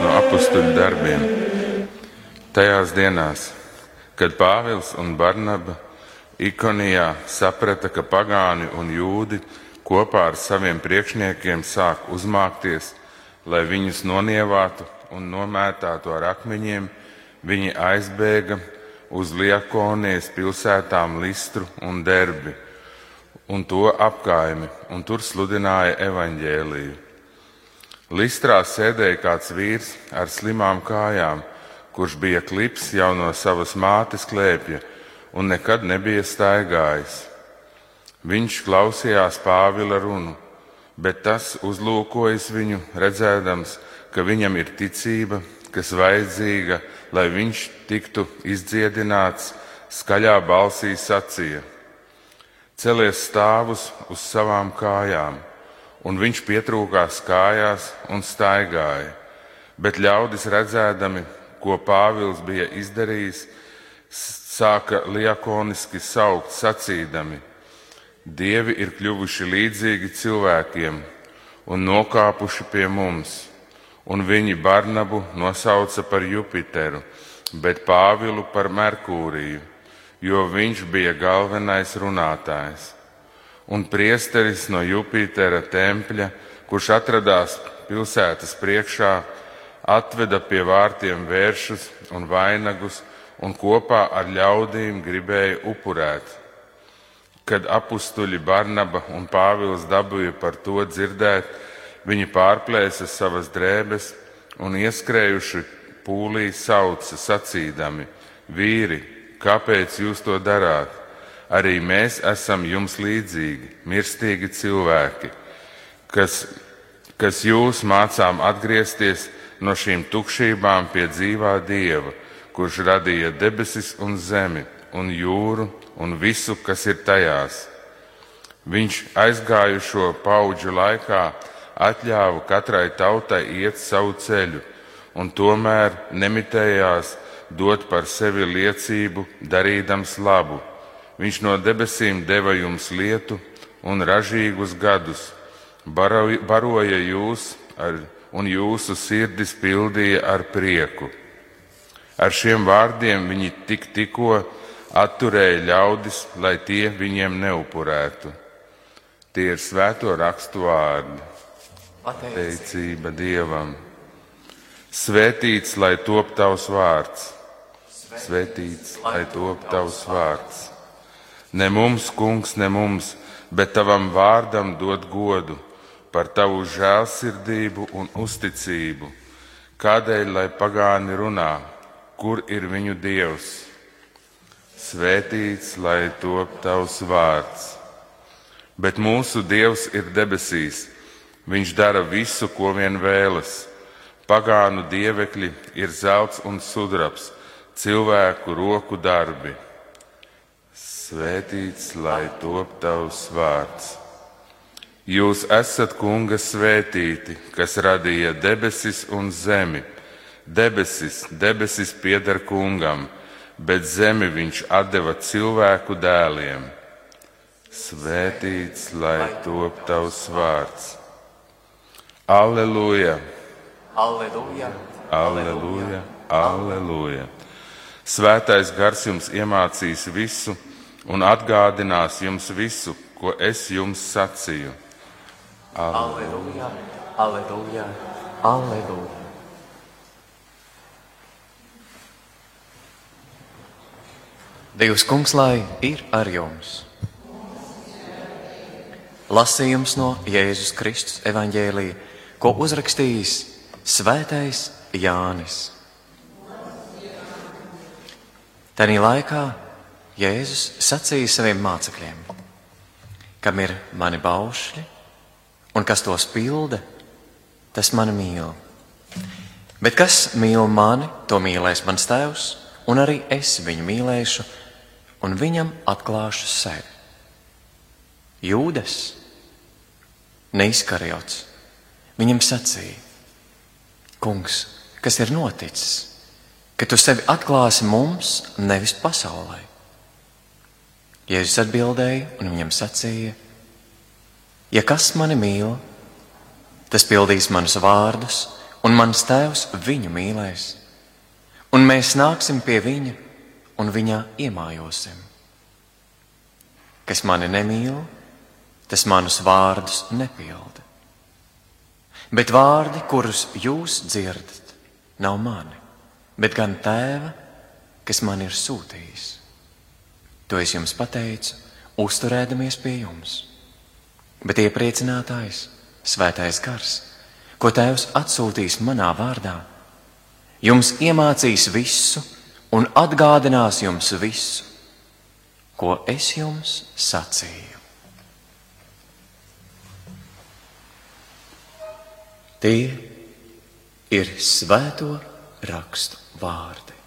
no apustuļu darbiem. Tajās dienās, kad Pāvils un Barnaba Ikonijā saprata, ka pagāni un jūdi kopā ar saviem priekšniekiem sāk uzmākties, lai viņus nonievātu un nomētātu ar akmeņiem, viņi aizbēga uz Liakonijas pilsētām Listru un Derbi un to apkaimi, un tur sludināja evaņģēliju. Listrā sēdēja kāds vīrs ar slimām kājām, kurš bija klips jau no savas mātes klēpja un nekad nebija staigājis. Viņš klausījās Pāvila runu, bet tas uzlūkojas viņu, redzēdams, ka viņam ir ticība, kas vajadzīga, lai viņš tiktu izdziedināts, skaļā balsī sacīja: Celies stāvus uz savām kājām, un viņš pietrūkās kājās un staigāja, bet ļaudis redzēdami, ko Pāvils bija izdarījis, sāka liakoniski saukt, sacīdami: Dievi ir kļuvuši līdzīgi cilvēkiem un nokāpuši pie mums, un viņi Barnabu nosauca par Jupiteru, bet Pāvilu par Merkūriju, jo viņš bija galvenais runātājs. Un priesteris no Jupitera tempļa, kurš atradās pilsētas priekšā, atveda pie vārtiem vēršus un vainagus un kopā ar ļaudīm gribēja upurēt. Kad apustuļi Barnaba un Pāvils dabūja par to dzirdēt, viņi pārplēsa savas drēbes un ieskrējuši pūlī sauca, sacīdami: Vīri, kāpēc jūs to darāt? Arī mēs esam jums līdzīgi, mirstīgi cilvēki, kas jūs mācām atgriezties no šīm tukšībām pie dzīvā Dieva, kurš radīja debesis un zemi un jūru un visu, kas ir tajās. Viņš aizgājušo paudžu laikā atļāva katrai tautai iet savu ceļu, un tomēr nemitējās dot par sevi liecību, darīdams labu. Viņš no debesīm deva jums lietu un ražīgus gadus, baroja jūs un jūsu sirdis pildīja ar prieku. Ar šiem vārdiem viņi tikko atturēja ļaudis, lai tie viņiem neupurētu. Tie ir svēto rakstu vārdi. Pateicība Dievam. Svētīts, lai top tavs vārds. Svētīts, lai top tavs vārds. Ne mums, kungs, ne mums, bet tavam vārdam dod godu par tavu žēlsirdību un uzticību. Kādēļ, lai pagāni runā, kur ir viņu Dievs? Svētīts, lai top tavs vārds. Bet mūsu Dievs ir debesīs. Viņš dara visu, ko vien vēlas. Pagānu dievekļi ir zelts un sudrabs, cilvēku roku darbi. Svētīts, lai top tavs vārds. Jūs esat Kunga svētīti, kas radīja debesis un zemi. Debesis pieder Kungam, bet zemi viņš atdeva cilvēku dēliem. Svētīts, lai top tavs vārds. Alleluja! Alleluja! Alleluja! Alleluja! Svētais gars jums iemācīs visu un atgādinās jums visu, ko es jums sacīju. Alleluja! Alleluja! Alleluja! Dievs Kungs, lai ir ar jums. Lasījums no Jēzus Kristus evaņģēlija, ko uzrakstījis Svētais Jānis. Tanī laikā Jēzus sacīja saviem mācekļiem: kam ir mani baušļi un kas tos pilda, tas mani mīl. Bet kas mīl mani, to mīlēs mans Tēvs, un arī es viņu mīlēšu un viņam atklāšu sevi. Jūdas, ne Iskariots, viņam sacīja: Kungs, kas ir noticis, ka tu sevi atklāsi mums, nevis pasaulē? Jēzus atbildēja un viņam sacīja: ja kas mani mīl, tas pildīs manus vārdus, un mans Tēvs viņu mīlēs, un mēs nāksim pie viņa un viņā iemājosim. Kas mani nemīl, tas manus vārdus nepilda. Bet vārdi, kurus jūs dzirdat, nav mani, bet gan Tēva, kas man ir sūtījis. To es jums pateicu, uzturēdamies pie jums. Bet iepriecinātājs, Svētais Gars, ko Tēvs atsūtīs manā vārdā, jums iemācīs visu un atgādinās jums visu, ko es jums sacīju. Tie ir Svēto rakstu vārdi.